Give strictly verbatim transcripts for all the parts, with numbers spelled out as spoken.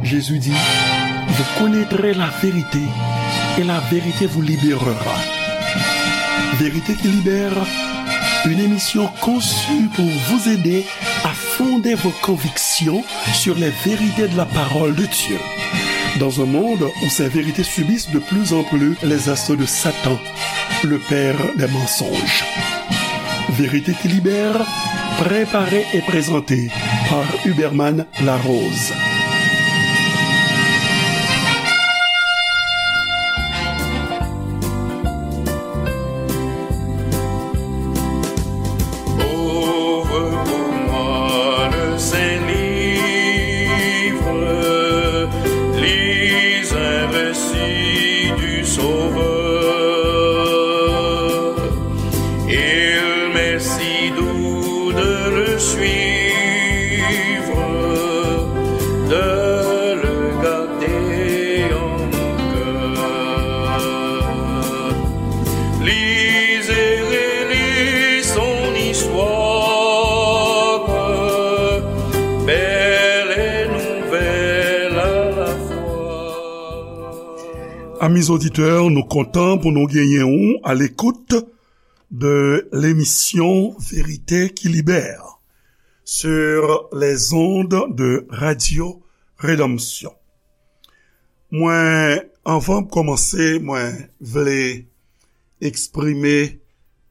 Jésus dit, vous connaîtrez la vérité et la vérité vous libérera. Vérité qui libère, une émission conçue pour vous aider à fonder vos convictions sur les vérités de la parole de Dieu. Dans un monde où ces vérités subissent de plus en plus les assauts de Satan, le père des mensonges. Vérité qui libère, préparée et présentée par Huberman Larose. Ouvre pour moi le Saint-Livre, lis un récit du Sauveur. Il m'est si doux de le suivre, de le garder en mon cœur. Lis et relis son histoire, belle et nouvelle à la fois. Amis auditeurs, nou kontan pou nou genyen ou à l'écoute de l'émission Vérité qui libère sur les ondes de Radio Rédemption. Mwen, anvan m kòmanse, mwen vle eksprime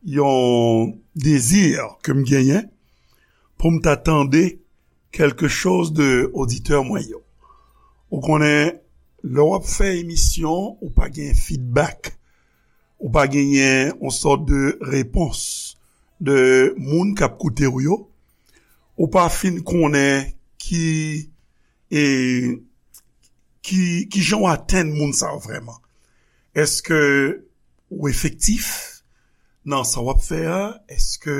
yon dezi ke m genyen pou m ta tande quelque chose de oditè mwen yo. Ou konnen, lè w ap fè emisyon, ou pa gen feedback, ou pa genyen yon sòt de repons de moun k ap koute w yo, ou pa fin konnen ki, e, ki, ki jan w atenn moun sa yo vrèman. Èske ou efektif nan sa w ap fè a? Èske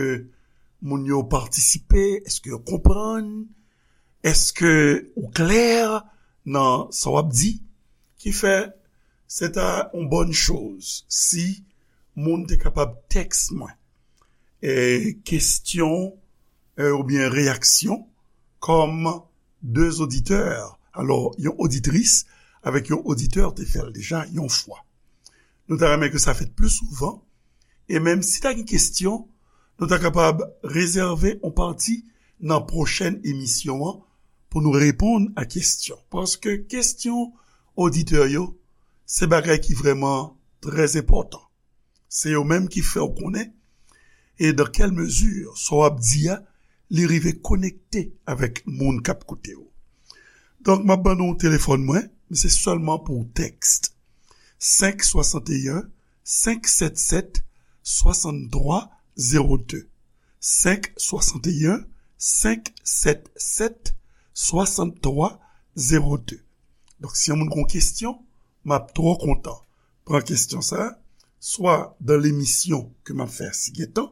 moun yo patisipe? Èske yo konprann? Èske ou klè nan sa w ap di? Ki fè, se ta yon bòn choz si moun te kapab tèks mwen, e, kesyon, e, oubyen reyaksyon kòm de oditè. Alò, yon oditris avèk yon oditè te fè l deja yon fwa. Nou ta renmen ke sa fèt pli souvan. E menm si ta gen kesyon, nou ta kapab rezève yon pati nan pwochèn emisyon an pou nou reponn a kesyon. Paske kesyon oditè yo, se bagay ki vrèman trè enpòtan. Se yo menm ki fè w konnen, e dan kèl mezi sa w ap di a, li rive konekte avèk moun k ap koute w. Donk, m ap ban nou telefòn mwen, men se sèlman pou tèks. Senk swasanteyen, senk sèt sèt, swasanntwa zewo de. Senk swasanteyen, senk sèt sèt, swasanntwa zewo de. Donk, si yon moun gen yon kesyon, m ap twò kontan pran kesyon sa, swa dan lemisyon ke m ap fè si gen tan,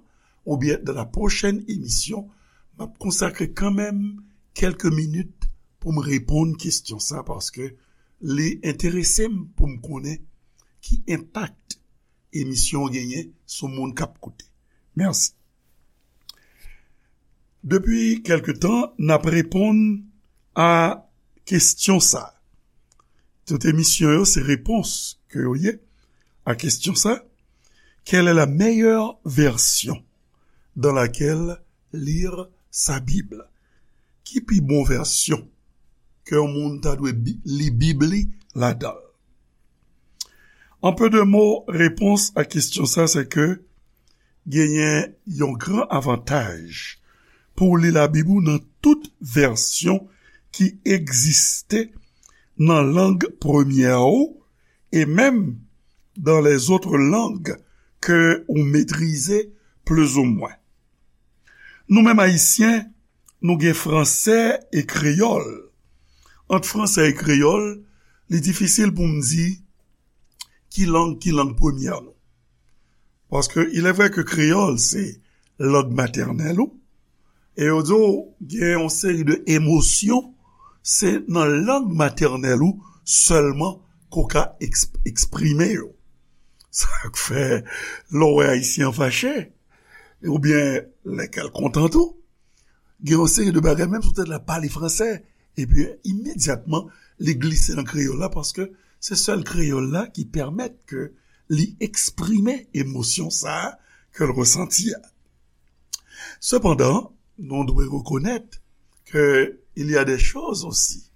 oubyen dan la pwochèn emisyon, m ap konsakre kanmenm kèlke minit pou m reponn kesyon sa, paske li enterese m pou m konnen ki enpak emisyon an genyen sou moun k ap koute. Mèsi. Depi kèlke tan, n ap reponn a kesyon sa. Tout emisyon yo, se repons ke yo ye a kesyon sa. Quelle est la meilleure version dans laquelle lire sa Bible? Ki pi bon vèsyon ke yon moun ta dwe bi-, li Bib li ladan l? En peu de mots, repons a kesyon sa, se ke genyen yon gran avantaj pou w li Labib ou nan tout vèsyon ki egziste nan lang premyè ou, e menm dans les autres langues ke ou metrize plizoumwen. Nou menm Ayisyen, nou gen fransè e kreyòl. Ant fransè e kreyòl, li difisil pou m di ki lang ki lang premyè nou. Paske il est vrai que kreyòl se lang matènèl ou, e yo di w gen yon seri de emosyon, se nan lang matènèl ou sèlman ke w ka eks-, eksprime yo. Sa k fè, lè w wè Ayisyen an fache, oubyen lè kè l kontan tou, gen yon seri de bagay, menm si w te la pale fransè, epi imedyatman, li glise nan kreyòl la, paske se sèl kreyòl la ki pèmèt ke li eksprime emosyon sa a ke l resanti a. Sepandan, nou dwe rekonèt ke il y a des choses aussi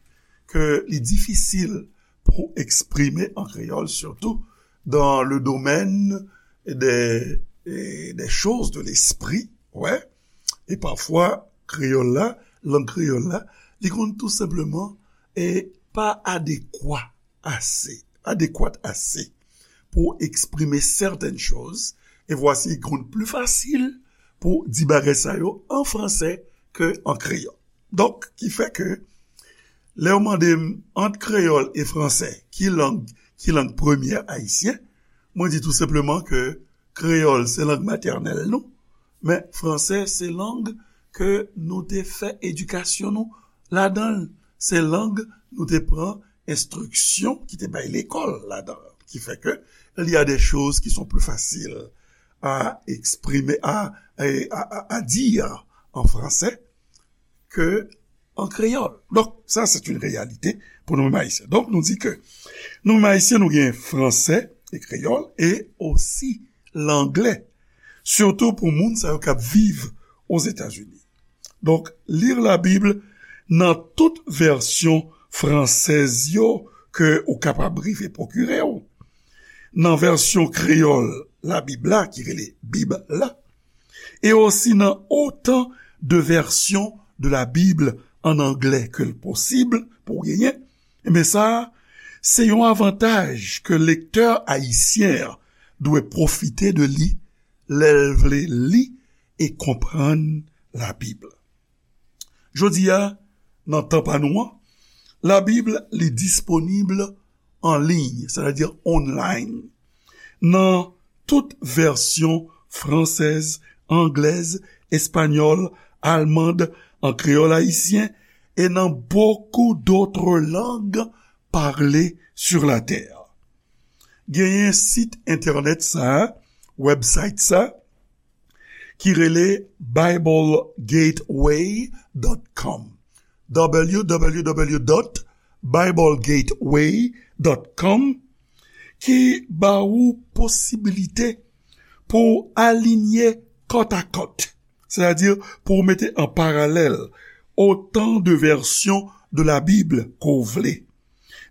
ke li difisil pou eksprime an kreyòl, surtout dans le domaine des, des choses de l'esprit, ouais. E pafwa, kreyòl la, lang kreyòl la, li konn tou senpleman e pa adekwa ase, adéquate assez pour exprimer certaines choses, et voici, il est plus facile pour dire bagay sa yo en français que en créole. Donk, ki fè ke, lè yo mande m ant kreyòl e fransè, ki lang, ki lang premyè ayisyen, mwen di tou senpleman ke kreyòl se lang matènèl nou, men fransè se lang ke nou te fè edikasyon nou ladan l, se lang nou te pran enstriksyon ki te bay lekòl ladan l, ki fè ke il y a des choses qui sont plus faciles à exprimer, à, à, à, à dire en français que en créole. Donc, ça, c'est une réalité pour nous-mêmes haïtiens. Donk, nou di ke nou menm ayisyen, nou gen fransè e kreyòl e osi langlè, sitou pou moun sa yo k ap viv Ozetazini. Donk, lire la Bible nan tout vèsyon fransèz yo ke ou kapab rive pwokire w. Nan vèsyon kreyòl Labib la, ki rele Bib la, e osi nan otan de vèsyon de la Bible an anglè ke l posib pou w genyen, ebyen sa a, se yon avantaj ke lektè ayisyen an dwe pwofite de li lè l vle li e konprann Labib. Jodi a, nan tan pa nou an, Labib li disponib an liy, sètadi online, nan tout vèsyon fransèz, anglèz, espanyòl, almand, an kreyòl ayisyen, e nan beaucoup d'autres langues parlées sur la terre. Genyen sit entènèt sa, website sa, ki rele bible gateway dot com, w w w dot bible gateway dot com, ki ba ou posibilite pou w alinye kòtakòt, sètadi pou w mete an paralèl otan de vèsyon de la Bib ke w vle,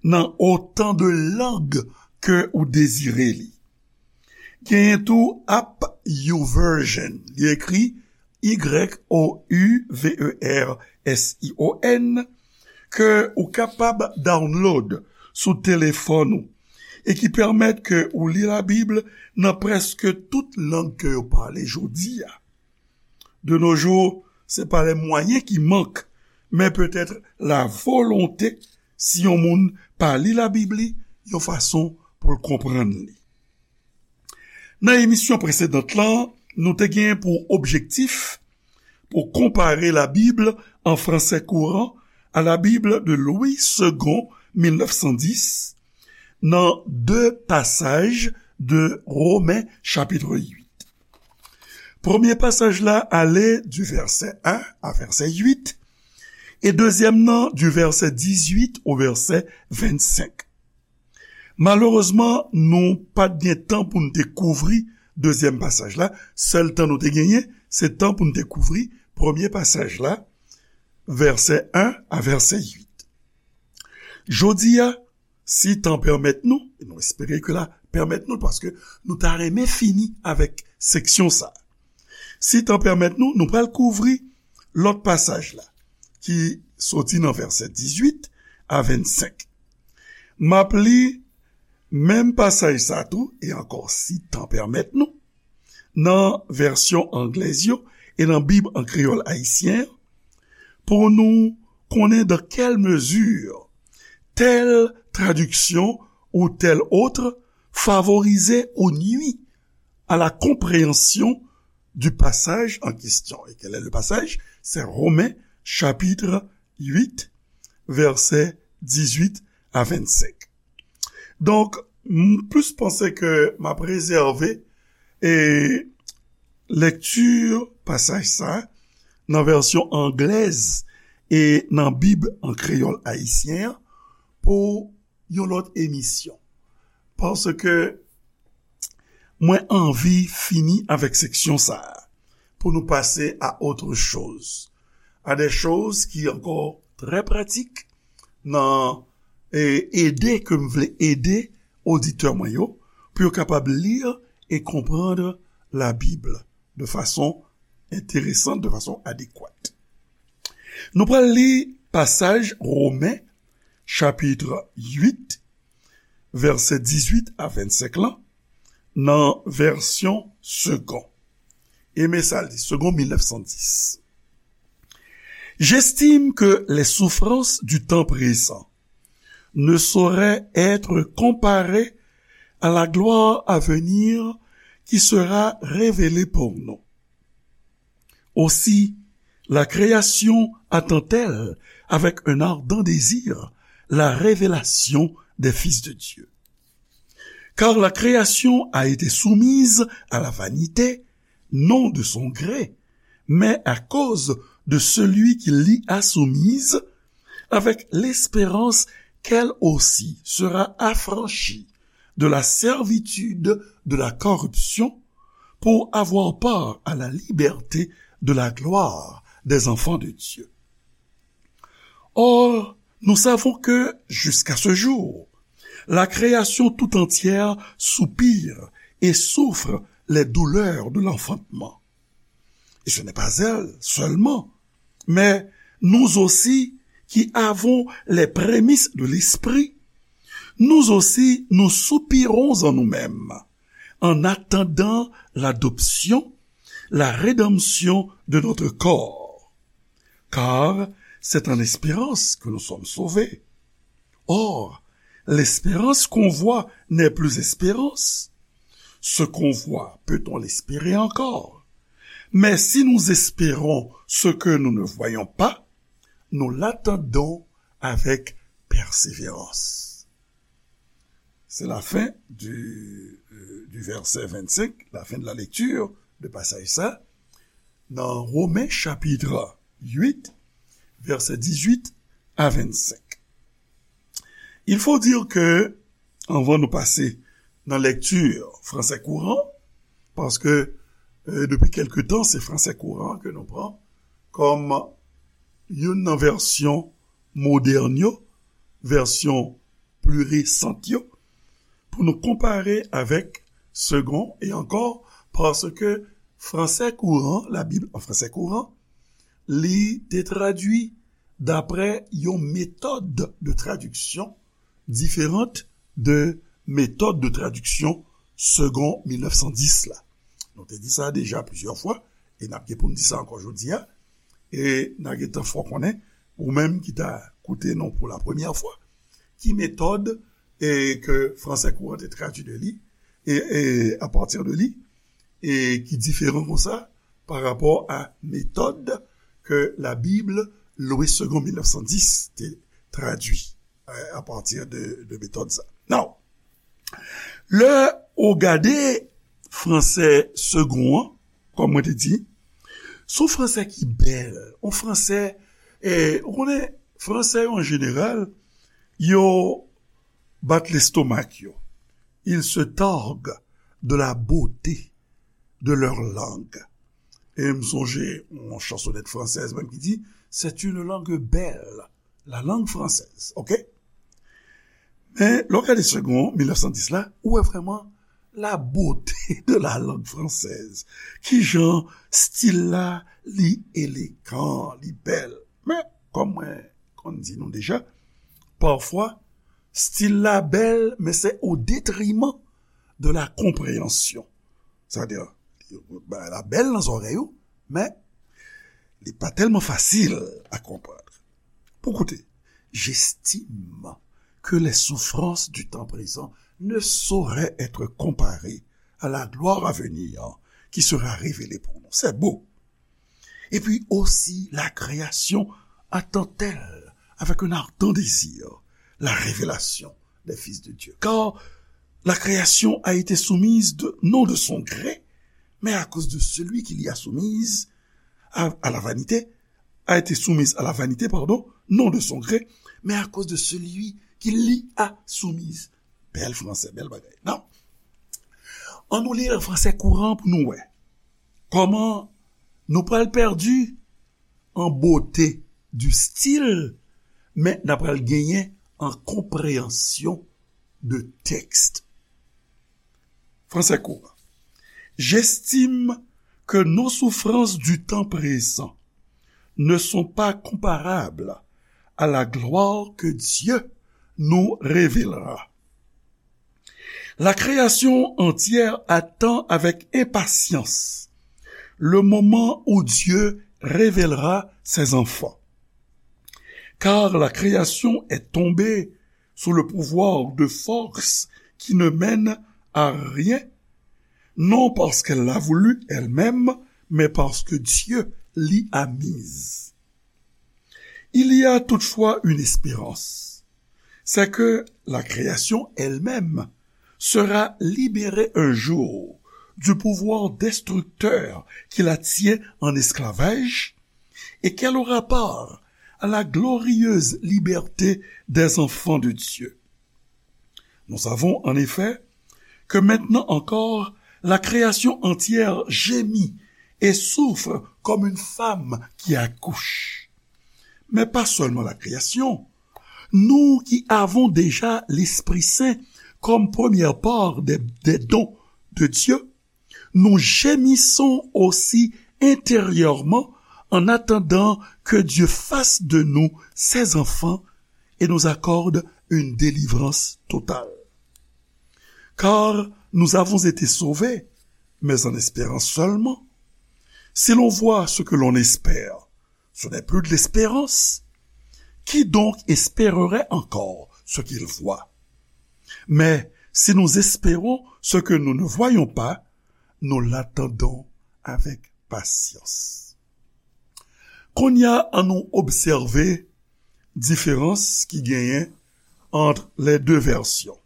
nan otan de lang ke ou dezire li. Genyen tou app YouVersion. Li ekri Y O U V E R S I O N, ke ou kapab download sou telefòn ou e ki pèmèt ke ou li Labib nan prèske tout lang ke yo pale jodi a. De nos jours, se pa les moyens qui manquent, men petèt la volonté, si yon moun pa li Labib li yon fason pou l konprann li. Nan emisyon presedant lan, nou te gen pou objektif pou konpare Labib an fransè kouran a la Bible de Louis Segond, mil nèf san dis, nan de pasaj de Romen chapit uit. Premye pasaj la ale di vèsè en a vèsè uit, e dezyèm nan di vèsè dizuit o vèsè vennsenk. Malerezman, nou pa t gen tan pou n te kouvri dezyèm pasaj la. Sèl tan nou te genyen, se tan pou n te kouvri premye pasaj la, vèsè en a vèsè uit. Jodi a, si tan pèmèt nou, e nou espere ke la pèmèt nou, paske nou ta renmen fini avèk seksyon sa. Si tan pèmèt nou, nou pral kouvri lòt pasaj la, ki soti nan vèsè dizuit a vennsenk. M ap li menm pasaj sa tou, e ankò si tan pèmèt nou, nan vèsyon anglèz yo e nan Bib an kreyòl ayisyen an, pou nou konnen dans quelle mesure telle traduction ou telle autre favorise ou nuit à la compréhension du passage en question. Et quel est le passage? C'est Romains chapitre huit, versets dix-huit à vingt-cinq. Donk, m plis panse ke m ap rezève, e, lekti pasaj sa nan vèsyon anglèz e nan Bib an kreyòl ayisyen an pou yon lòt emisyon. Paske mwen anvi fini avèk seksyon sa a pou nou pase a autre chose, a de choz ki ankò trè pratik nan e, ede ke m vle ede oditè mwen yo pou yo kapab li e konprann Labib de fason enteresan, de fason adekwat. Nou pral li pasaj Women, chapit uit, vèsè dizuit a vennsenk lan, nan vèsyon Segond. E men sa l di, Segond mil nèf san dis. J'estime que les souffrances du temps présent ne sauraient être comparées à la gloire à venir qui sera révélée pour nous. Aussi, la création attend-elle avec un ardent désir la révélation des fils de Dieu. Car la création a été soumise à la vanité, non de son gré, mais à cause de celui qui l'y a soumise, avec l'espérance qu'elle aussi sera affranchie de la servitude de la corruption pour avoir part à la liberté de la gloire des enfants de Dieu. Or, nous savons que, jusqu'à ce jour, la création tout entière soupire et souffre les douleurs de l'enfantement. Et ce n'est pas elle seulement, mais nous aussi qui avons les prémices de l'Esprit, nous aussi nous soupirons en nous-mêmes, en attendant l'adoption, la rédemption de notre corps. Car c'est en espérance que nous sommes sauvés. Or, l'espérance qu'on voit n'est plus espérance. Ce qu'on voit, peut-on l'espérer encore? Mais si nous espérons ce que nous ne voyons pas, nous l'attendons avec persévérance. C'est la fin du, euh, du verset vingt-cinq, la fin de la lecture de passage ça, dans Romains chapitre huit, verset dix-huit à vingt-cinq. Il faut dire que, anvan nou pase nan lèkti fransè kouran, paske, euh, depi kèlke tan, se fransè kouran ke nou pran kòm youn nan vèsyon modèn yo, vèsyon pli resant yo, pou nou konpare avèk Segond, e ankò, paske fransè kouran, Labib an fransè kouran, li te tradui daprè yon metòd de tradiksyon diferan de metòd de tradiksyon Segond mil nèf san dis la. Nou te di sa deja plizyè fwa, e n ap gen pou n di sa ankò jodi a, e n a gentan fè w konnen, ou menm ki ta koute nou pou la premyè fwa, ki metòd e ke fransè kouran te tradui de li, e, e apati de li, e ki diferan konsa pa rapò a metòd ke Labib Louis Segond mil nèf san dis te tradui, e, apati de, de metòd sa. Now, lè ou gade fransè Segond an, kòm mwen te di, se yon fransè ki bèl, yon fransè, e, ou konnen, fransè yo an jeneral, yo bat lestomak yo. Ils se targuent de la beauté de leur langue. E m sonje yon chansonèt fransèz menm ki di, c'est une langue belle, la langue française, ok? Men, lè w gade Segond mil nèf san dis la, ou wè vrèman la beauté de la langue française. Kijan stil la, li elegan, li bèl. Men, kòm mwen konn di nou deja, pafwa, stil la bèl, men se o detriman de la konpreyansyon. Sa vle di, bagay la bèl nan zòrèy ou, men li pa tèlman fasil a konprann. Pou koute, j'estime que les souffrances du temps présent ne sauraient être comparées à la gloire à venir qui sera révélée pour nous. C'est beau. Et puis aussi, la création attend-elle avec un ardent désir la révélation des fils de Dieu. Car la création a été soumise de, non de son gré, mais à cause de celui qui l'y a soumise à, à la vanité, a été soumise à la vanité, pardon, non de son gré, mais à cause de celui ki li a soumise. Bèl fransè, bèl bagay. Non. Ann nou li l an fransè kouran pou nou wè kòman nou pral pèdi an bote di stil, men n ap pral genyen an konpreyansyon de tèks. Fransè kouran. J'estime que nos souffrances du temps présent ne sont pas comparables à la gloire que Dieu nous révélera. La création entière attend avec impatience le moment où Dieu révélera ses enfants. Car la création est tombée sous le pouvoir de forces qui ne mènent à rien, non parce qu'elle l'a voulu elle-même, mais parce que Dieu l'y a mise. Il y a toutefois une espérance, c'est que la création elle-même sera libérée un jour du pouvoir destructeur qui la tient en esclavage et qu'elle aura part à la glorieuse liberté des enfants de Dieu. Nous savons en effet que maintenant encore, la création entière gémit et souffre comme une femme qui accouche. Mais pas seulement la création. Nous qui avons déjà l'Esprit Saint comme première part des, des dons de Dieu, nous gémissons aussi intérieurement en attendant que Dieu fasse de nous ses enfants et nous accorde une délivrance totale. Car nous avons été sauvés, mais en espérant seulement. Si l'on voit ce que l'on espère, ce n'est plus de l'espérance. Qui donc espérerait encore ce qu'il voit? Mais si nous espérons ce que nous ne voyons pas, nous l'attendons avec patience. Kounye a, ann nou obsève diferans ki genyen ant les deux versions,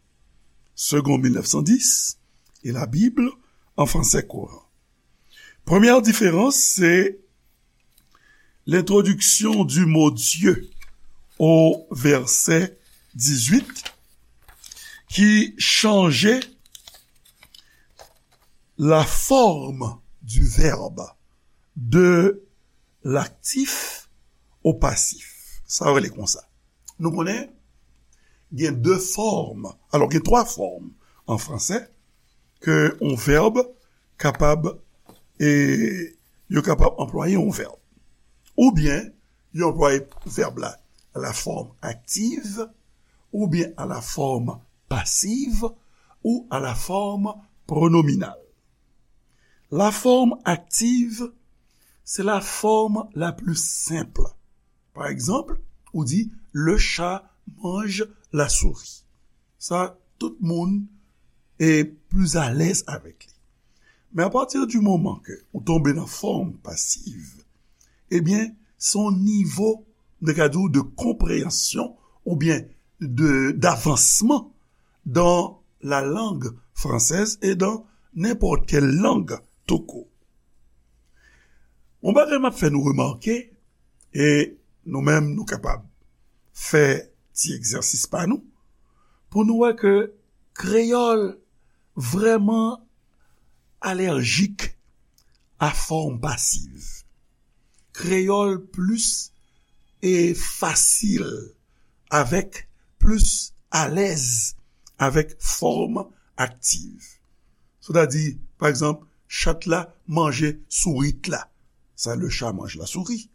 Segond mil nèf san dis e la Bible an fransè kouran. Premyè diferans, se l'introduction du mot Dieu au verset dix-huit, ki chanje la forme du verbe de l'actif au passif. Sa yo rele konsa. Nou konnen gen de fòm, alò, gen twa fòm an fransè ke yon vèb kapab, e, yo kapab anplwaye yon vèb. Oubyen, yo anplwaye vèb la a la forme active, oubyen a la forme passive, ou a la forme pronominale. La forme active, c'est la forme la plus simple. Pa egzanp, ou di, le chat mange la souris. Sa, tout moun e pli alèz avèk li. Men apati di moman ke ou tonbe nan fòm pasiv, ebyen, se yon nivo, nou ka di w, de konpreyansyon oubyen de, d'avansman dans la langue française et dans n'importe quelle langue tout court. Yon bagay m ap fè nou remake, e nou menm nou kapab fè ti egzèsis pa nou, pou nou wè ke kreyòl vrèman alèjik a fòm pasiv. Kreyòl plis e fasil avèk, plis alèz avèk fòm aktiv. Sètadi, pa egzanp, chat la manje sourit la. Sa, le chat mange la souris.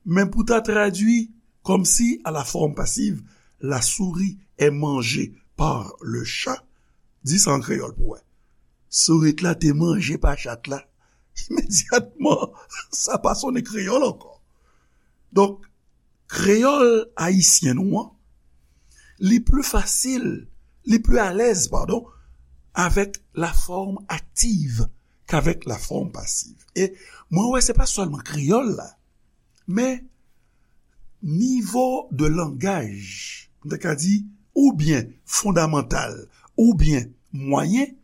Men pou ta tradui kòmsi a la forme passive, la souris est mangée par le chat, di sa an kreyòl pou wè. Sourit la te manje pa chat la. Imedyatman, sa pa sonnen kreyòl ankò. Donk, kreyòl ayisyen nou an, li pli fasil, li pli alèz, padon, avèk la forme active k'avèk la forme passive. E mwen wè se pa sèlman kreyòl la, men nivo de langaj, m ta ka di, oubyen fondamantal, oubyen mwayen,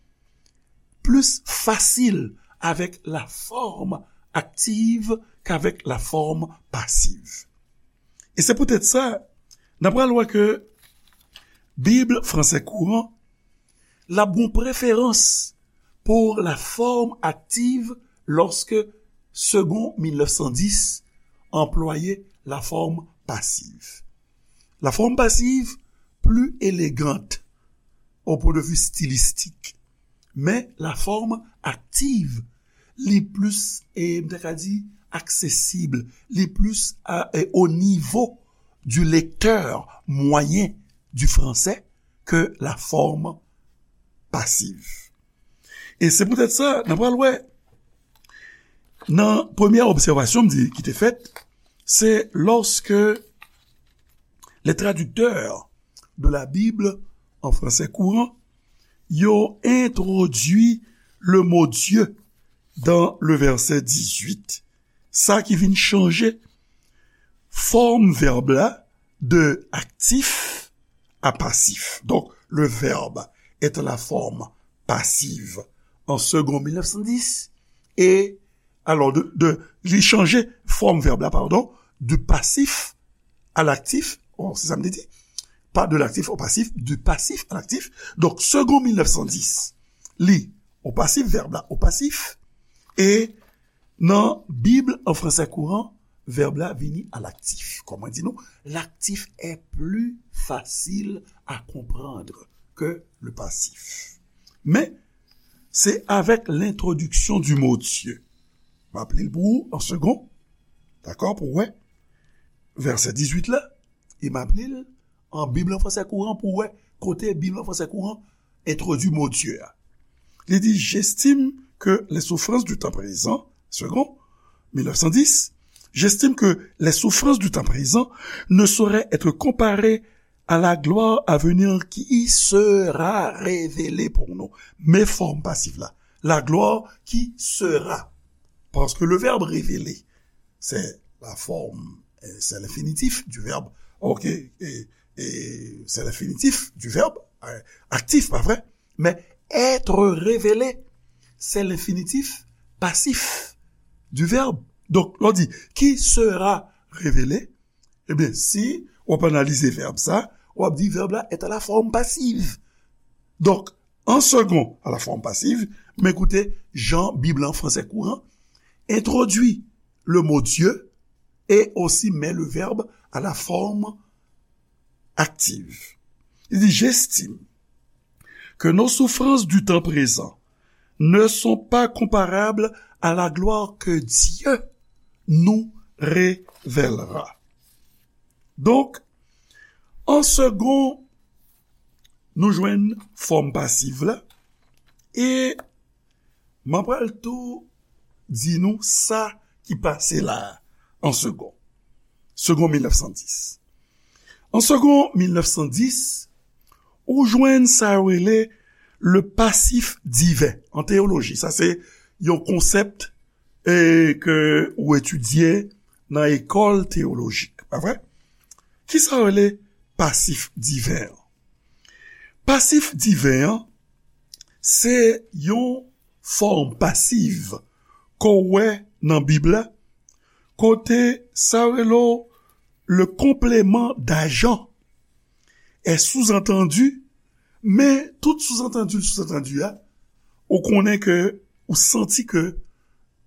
plis fasil avèk la forme active k'avèk la forme passive. E se poutèt sa, n ap pral wè ke Bib fransè kouran, l ap gon preferans pou la forme active lorsque Segond mil nèf san dis anplwaye la forme passive. La forme passive plus élégante au point de vue stylistique, men la forme active li plis, e m ta ka di, aksesib, li plis a, e, o nivo du lecteur moyen du français que la forme passive. E se poutèt sa, n a pral wè, nan premyè obsèvasyon m di ki te fèt, se lorsque les traducteurs de la Bible en français courant, yo entwodui le mot Dieu dans le verset dix-huit. Sa ki vin chanje fòm vèb la de actif à passif. Donc, le verbe est à la forme passive en Segond mil nèf san dis, et, alors, de, de, li chanje fòm vèb la, pardon, du passif à l'actif, oh, se sa m te di, pas de l'actif au passif, du passif à l'actif. Donk, Segond mil nèf san dis, li, o pasif, vèb la, o pasif, e nan Bib an fransè kouran, vèb la vini à l'actif. Kòm mwen di nou, l'actif est plus facile à comprendre que le passif. Men, se avec l'introduction du mot Dieu. M ap li l pou ou an segond. Dakò, pou w wè vèsè dizuit la, e m ap li l an Bib an fransè kouran pou w wè kote Bib an fransè kouran entwodui mo Dieu a. Li di, j'estime que les souffrances du temps présent, Segond, mil nèf san dis, j'estime que les souffrances du temps présent ne sauraient être comparées à la gloire à venir qui sera révélée pour nous. Men fòm pasif la, la gloire qui sera. Parce que le verbe révéler, c'est la forme, euh, c'est l'infinitif du verbe. Ok, et, et c'est l'infinitif du verbe euh, actif, pas vrai? Mais être révélé, c'est l'infinitif passif du verbe. Donk, lè w di, qui sera révélé, ebyen, si w ap analize vèb sa, w ap di vèb la est à la forme passive. Donk, en second, à la forme passive, men koute jan Bib la an fransè kouran entwodui le mot Dieu et aussi met le verbe à la forme active. Li di, j'estime que nos souffrances du temps présent ne sont pas comparables à la gloire que Dieu nous révélera. Donk, an segond, nou jwenn fòm pasiv la, e m ap pral tou di nou sa ki pase la a, an segond. Segond mil nèf san dis. An segond mil nèf san dis, ou jwenn sa yo rele le passif divin an teyoloji. Sa se yon konsèp e ke ou etidye nan ekòl teyolojik, pa vre? Kisa yo rele pasif diven an? Pasif diven an, se yon fòm pasiv ke w wè nan Bib la, kote sa yo rele w le complément d'agent est sous-entendu, men tout sous-entendu, sous-entendu a, ou konnen ke, ou santi ke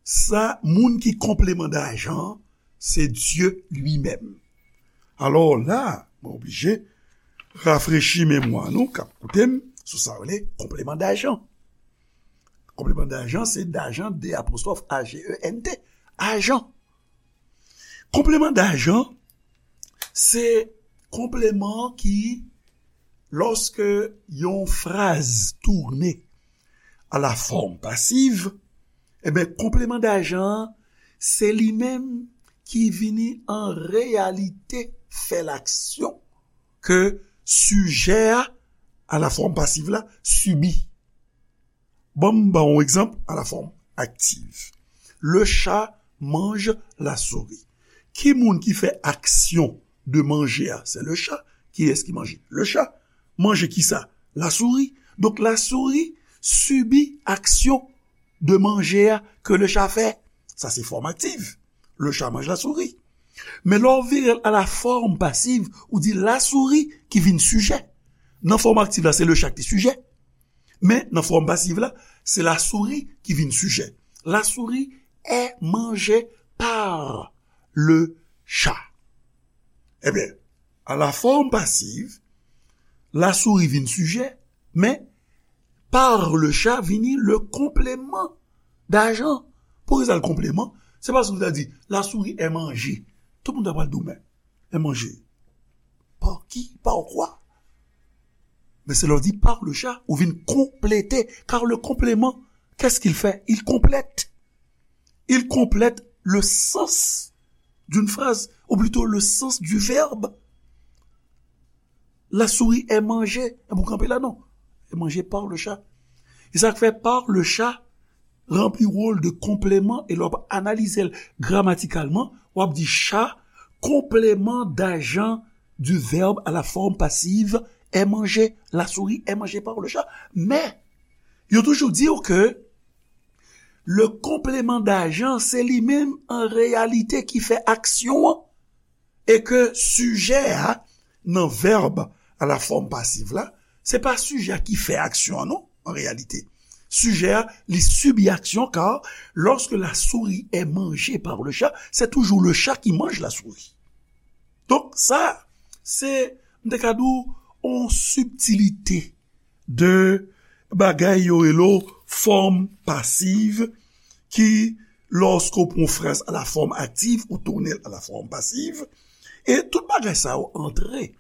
sa, moun ki konpleman dajan an, se Dye li menm. Alò la, mwen oblije rafrechi memwa nou k ap koute m sou sa yo rele konpleman dajan. Konpleman dajan, se dajan, D apostwòf A G E N T, ajan. Konpleman dajan, se konpleman ki, lòske yon fraz tounen a la fòm pasiv, ebyen, konpleman dajan an, se li menm ki vini an reyalite fè laksyon ke sijè a, a la fòm pasiv la, sibi. Ban m ba w yon egzanp a la fòm aktiv. Le chat mange la souris. Ki moun ki fè aksyon de manje a? Se le chat. Kiyès ki manje? Le chat. Manje kisa? La souris. Donk, la souris sibi aksyon de manje a ke le chat fè. Sa se fòm aktiv. Le chat mange la souris. Men lè w vire l a la fòm pasiv, ou di la souris ki vin sijè. Nan fòm aktiv la, se le chat ki te sijè. Men nan fòm pasiv la, se la souris ki vin sijè. La souris est mangée par le chat. Ebyen, a la fòm pasiv, la souris vin sijè, men par le chat vini le complément d'agent. Poukisa le complément? Se paske ou ta di, la souris est mangée. Tout moun ta pral di w, men, est mangée. Par qui? Par quoi? Men se lè w di par le chat, ou vin konplete, car le complément, qu'est-ce qu'il fait? Il complète. Il complète le sens d'une phrase, ou plutôt le sens du verbe. La souris est mangée. Ebyen, ou kanpe la, non. Est mangée par le chat. E sa k fè par le chat ranpli wòl de konpleman, e lè w ap analize l gramatikalman, w ap di chat, complément d'agent du verbe à la forme passive, est mangée, la souris est mangée par le chat. Men, yo toujou di w ke le complément d'agent, se li menm an reyalite ki fè aksyon an. E ke sijè a, nan vèb a la fòm pasiv la, se pa sijè a ki fè aksyon an, non, an reyalite. Sijè a, li sibi aksyon, car lorsque la souris est mangée par le chat, c'est toujours le chat qui mange la souris. Donk, sa, se, m te ka di w, yon sibtilite de bagay yo rele w fòm pasiv, ki, lòske w pran yon fraz a la fòm aktiv, ou tounen l a la fòm pasiv, e tout bagay sa yo antre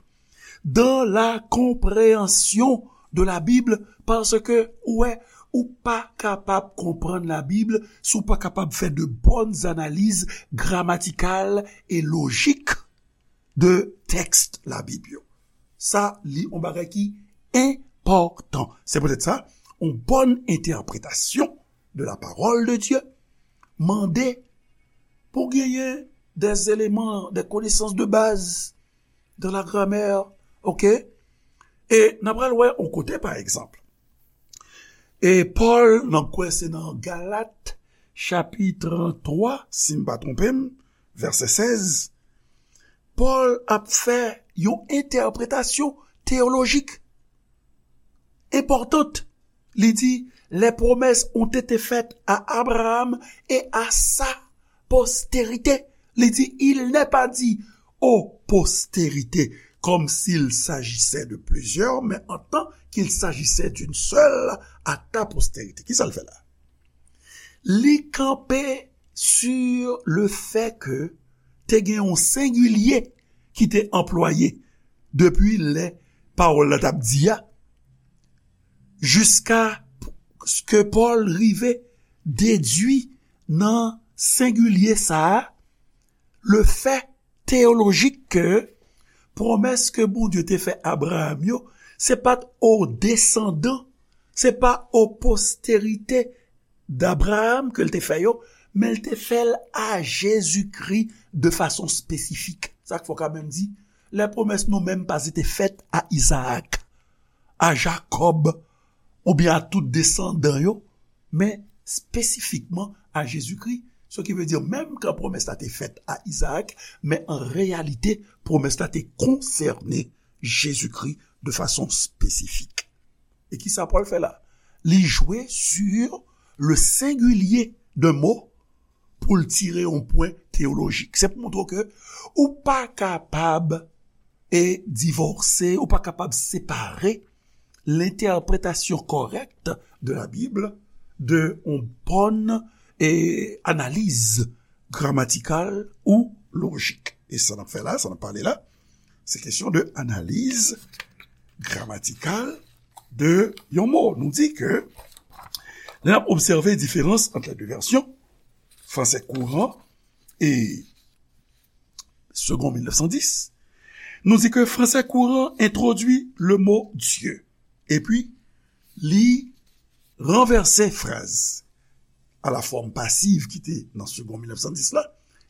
dans la compréhension de la Bible, paske ou wè, ou pa kapab konprann Labib si w pa kapab fè de bonnes analyses grammaticales et logiques de tèks Labib yo. Sa, li yon bagay ki enpòtan. Se poutèt sa, yon bòn entèpretasyon de la parole de Dieu mande pou genyen des éléments, des connaissances de base dans la grammaire, ok? E n a pral wè yon kote, pa egzanp. E Pòl, nan kwè se nan Galat, chapit twa, si m pa twonpe m, vèsè sèz, Pòl ap fè yon entèpretasyon teyolojik enpòtant. Li di, les promesses ont été faites à Abraham et à sa postérité. Li di, il n'est pas dit aux postérités, comme s'il s'agissait de plusieurs, mais en tant qu'il s'agissait d'une seule, à ta postérité. Kisa l fè la? Li kanpe sur le fait que te gen yon sengilye ki te anplwaye depi lè pawòl la t ap di a, jiska ke Pòl rive dedui nan sengilye sa a, le fè teyolojik ke pwomès ke Bondye te fè Abraham yo, se pa t o desandan, se pa o posterite d'Abraham ke l te fè yo, men l te fè l a Jezikri de fason espesifik. Sa k fè w ka menm di, les promesses n'ont même pas été faites à Isaac, à Jacob, oubyen a tout desandan yo, men espesifikman a Jezikri. Ce qui veut dire, menm kan pwomès la te fèt a Izaak, men an reyalite, pwomès la te konsène Jezikri de fason espesifik. E kisa Pòl fè la? Li jwe sur le sengilye de mo pou l tire yon pwen teyolojik. Se pou montre w ke ou pa kapab e divòse, ou pa kapab separe l'interprétation correcte de la Bible de yon bòn e analiz gramatikal ou lojik. E sa n ap fè la, sa n ap pale la, se kesyon de analiz gramatikal de yon mo. Nou di ke lè n ap obsève diferans ant les deux versions, français courant e Segond mil nèf san dis, nou di ke fransè kouran entwodui le mo Dieu, epi li ranvèse fraz a la fòm pasiv ki te nan Segond mil nèf san dis la,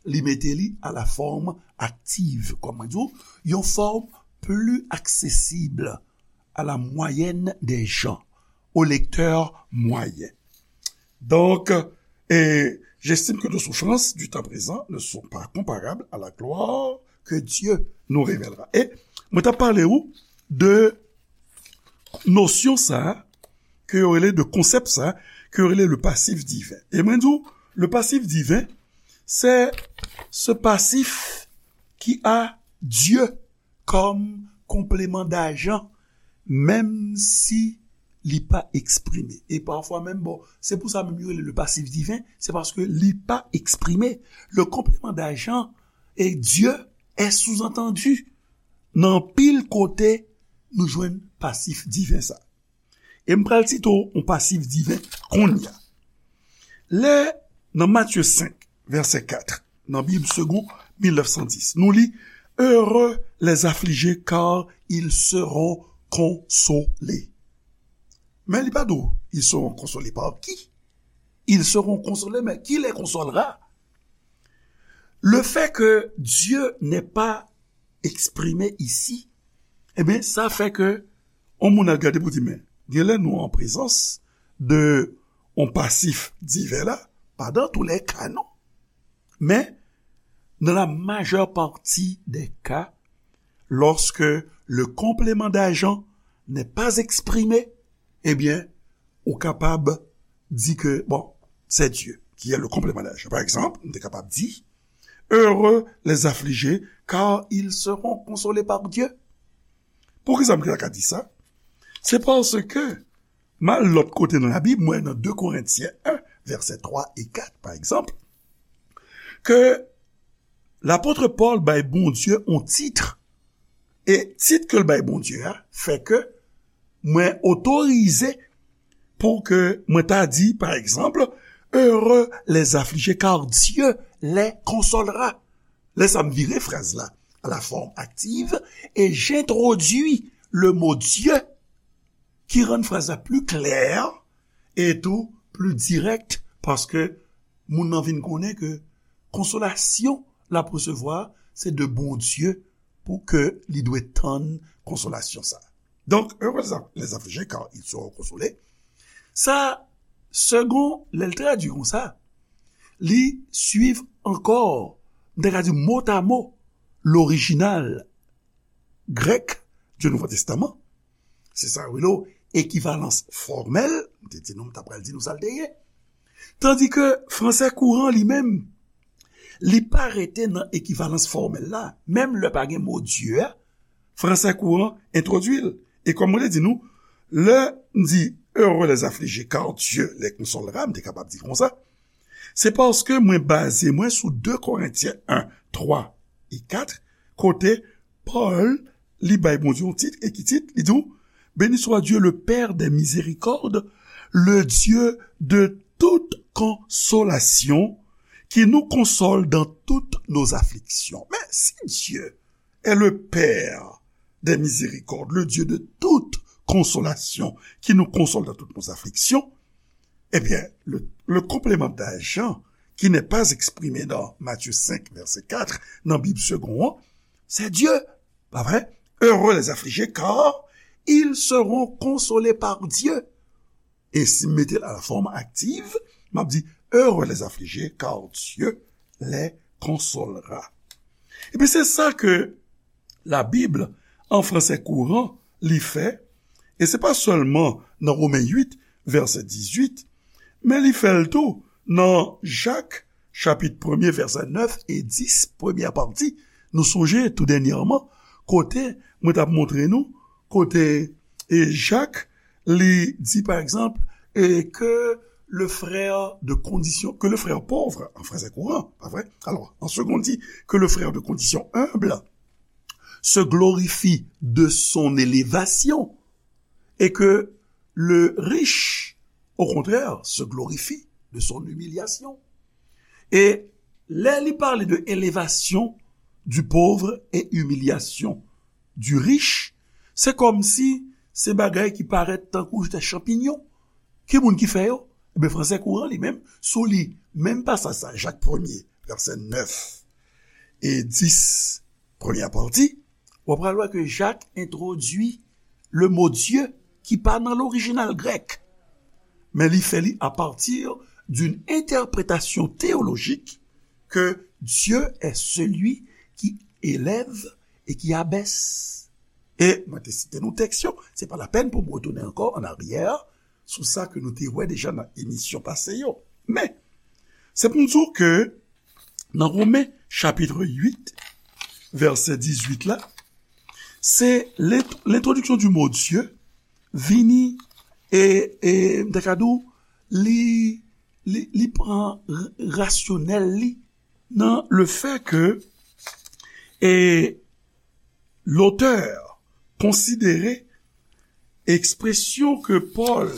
li mete li a la fòm aktiv, kòm mwen di w, yon fòm pli aksesib à la moyenne des gens, au lecteur moyen. Donc, et j'estime que nos souffrances du temps présent ne sont pas comparables à la gloire que Dieu nous révélera. E mwen t ap pale ou de nosyon sa a, ke yo rele de konsèp sa a, ke yo rele le passif divin. E mwen di w, le passif divin, c'est ce passif qui a Dieu comme complément d'agent, menm si li pa eksprime. E pafwa menm, bon, se pou sa menm yo rele le passif divin, se paske li pa eksprime. Le complément d'agent et Dieu est sous-entendu. Nan anpil kote, nou jwenn pasif diven sa. E m pral site w yon pasif diven kounye a. Lè, nan Matye senk, vèsè kat, nan Bib Segond mil nèf san dis, nou li, Heureux les affligés, car ils seront consolés. Men li pa di w, ils seront consolés par qui? Ils seront consolés, mais qui les consolera? Le fait que Dieu n'ait pas exprimé ici, eh bien, ça fait que yon moun al gade pou di, men, genlè nou an prezans de yon pasif diven la, pas dans tous les cas, non. Mais dans la majeure partie des cas, lorsque le complément d'agent n'est pas exprimé, eh bien, ou kapab di ke, bon, c'est Dieu qui est le complément d'agent. Pa egzanp, m te kapab di, Heureux les affligés, car ils seront consolés par Dieu. Poukisa m te ka di sa? Se paske, m al lòt kote nan Labib, mwen nan de Korentyen en, vèsè twa e kat, pa egzanp, ke lapot Pòl bay Bondye yon tit, e tit ke l bay Bondye a fè ke mwen otorize pou ke mwen ta di, pa egzanp, Heureux les affligés, car Dieu les consolera. Lè sa m vire fraz la à la forme active et j'introduis le mot Dieu ki rann fraz la pli klè e tou pli dirèk, paske moun nan vin konnen ke konsolasyon l ap resevwa se de Bondye pou ke li dwe tann konsolasyon sa. Donc, heureux les affligés, car ils seront consolés. Sa, Segond, lè l tradui konsa, li suiv ankò, m ta ka di motamo, lorijinal grèk du Nouveau Testament. Se sa yo rele ekivalans fòmèl. M te di nou, m ta pral di nou sa l te ye. Tandi ke fransè kouran li menm, li pa rete nan ekivalans fòmèl la. Menm lè pa gen mo Dye a, fransè kouran entwodui l. E kòm mwen te di nou, lè m di heureux les affligés, car Dieu les consolera, m te kapab di konsa, se paske mwen baze mwen sou de Korentyen en, twa e kat, kote Pòl, li bay Bondye yon tit, e ki tit? Li di w, Béni soit Dieu, le Père des miséricordes, le Dieu de toute consolation, qui nous console dans toutes nos afflictions. Mais si Dieu est le Père des miséricordes, le Dieu de toute consolation, qui nous console dans toutes nos afflictions, eh bien, le, le complément d'agent qui n'est pas exprimé dans Matthieu cinq, verset quatre, dans Bible Segond, c'est Dieu. Pa vre? Heureux les affligés, car ils seront consolés par Dieu. E si m mete l a la fòm aktiv, m ap di, Heureux les affligés, car Dieu les consolera. Epi se sa ke Labib an fransè kouran li fè, e se pa sèlman nan Women uit, vèsè dizuit, men li fè l tou nan Jak, chapit premye, vèsè nèf e dis, premyè pati. Nou sonje tou dènyèman, kote mwen t ap montre nou, kote e Jak, li di, pa egzanp, e ke le frère de condition, que le frère pauvre, en français courant, pas vrai? Alors, en second, dit que le frère de condition humble se glorifie de son élévation et que le riche, au contraire, se glorifie de son humiliation. E lè li pale de élévation du pauvre et humiliation du riche, se kòmsi se bagay ki parèt tankou te chanpinyon. Ki moun ki fè yo? Ebyen, fransè kouran li menm, si w li menm pasaj sa, Jak premye, vèsè nèf e dis, premyè pati, w ap pral wè ke Jak entwodui le mo Dye ki pa nan lorijinal grèk, men li fè li à partir d'une interprétation théologique que Dieu est celui qui élève et qui abaisse. E mwen te site nou tèks yo. Se pa lapèn pou m retounen ankò an aryè sou sa ke nou te wè deja nan emisyon pase yo. Men, se pou m di w ke nan Women chapit uit, vèsè dizuit la, se lent-, lentrodiksyon di mo Dye vini e, e, m ta ka di w, li, li, li pran r-, rasyonèl li nan le fè ke, e, lotè konsidere ekspresyon ke Pòl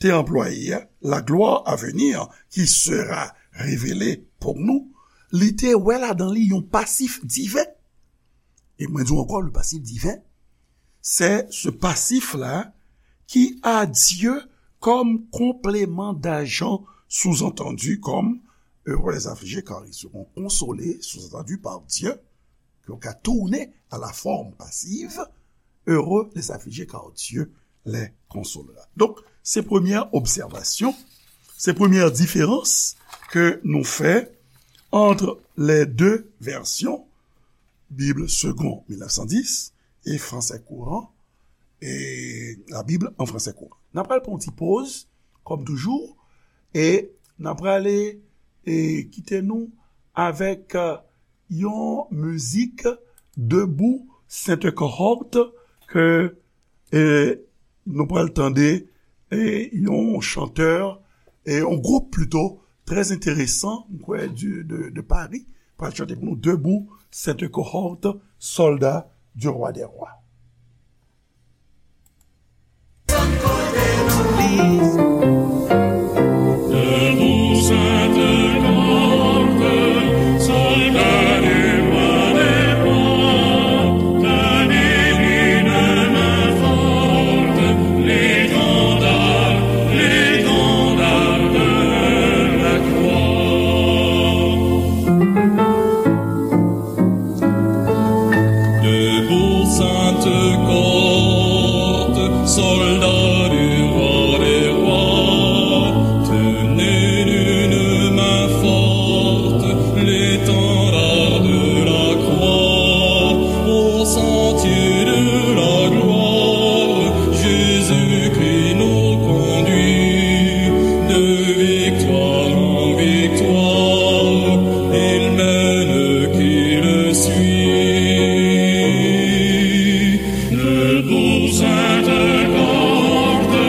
te anplwaye a, la gloire à venir qui sera révélée pour nous, li te wè ladan li yon pasif diven. E mwen di w ankò, le passif divin, c'est ce passif-là qui a Dieu comme complément d'agent, sous-entendu comme heureux les affligés car ils seront consolés, sous-entendu par Dieu, ke w ka tounen à la forme passive, heureux les affligés car Dieu les consolera. Donk, se premyè obsèvasyon, se premyè diferans ke nou fè ant les deux versions, Bible Segond mil nèf san dis e Français Courant, e la Bible en Français Courant. N ap pral pran yon ti poz, kòm toujou, e n ap prale e kite nou avèk, e, yon mizik Debout Sainte Cohorte ke, e, nou pral tande, e, yon chantè, e, yon gwoup plito, trè enteresan, m kwè, di, de, de Paris, pral chante pou nou Debout Sainte Cohorte, soldats du roi des rois. Debout, Sainte Cohorte, soldats du roi des rois, tenez d'une main forte l'étendard de la croix, au sentier de la gloire, Jésus-Christ nous conduit de victoire en victoire, il mène qui le suit. Debout, Sainte Cohorte,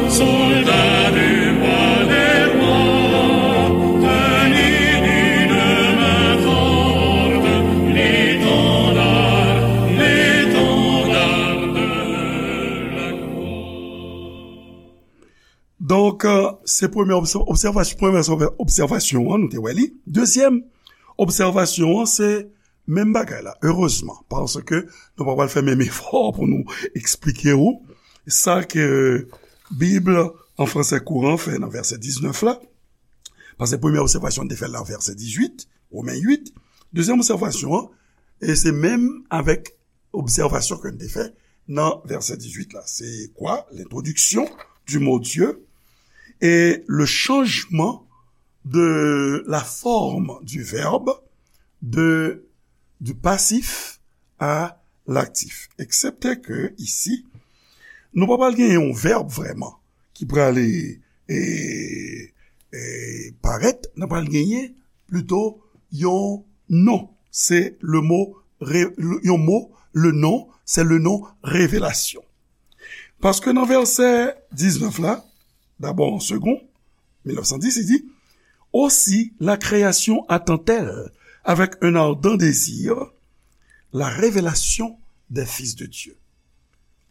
soldats du roi des rois, tenez d'une main forte l'étendard, l'étendard de la croix. Donk, euh, se premyè obsè-, obsèvasyon, premyè obsèvasyon an, nou te wè li. Dezyèm obsèvasyon an, se menm bagay la, erezman, paske nou pa pral fè menm efò pou nou eksplike w sa ke Bib an fransè kouran fè nan vèsè diznèf la. Paske premyè obsèvasyon n te fè l nan vèsè dizuit, Women uit. Dezyèm obsèvasyon an, e se menm avèk obsèvasyon ke n te fè nan vèsè dizuit la. Se kwa? L'introduction du mot Dieu et le changement de la forme du verbe, de, du passif à l'actif. Eksepte ke isi, nou pa pral gen yon vèb vrèman ki pral, e, e, parèt, nou pral genyen plito yon non. Se le mo, re-, yon mo, le non, se le non revelasyon. Paske nan vèsè diznèf la, dabò an Segond mil nèf san dis, li di, aussi la création attend-elle avec un ardent désir la révélation des fils de Dieu.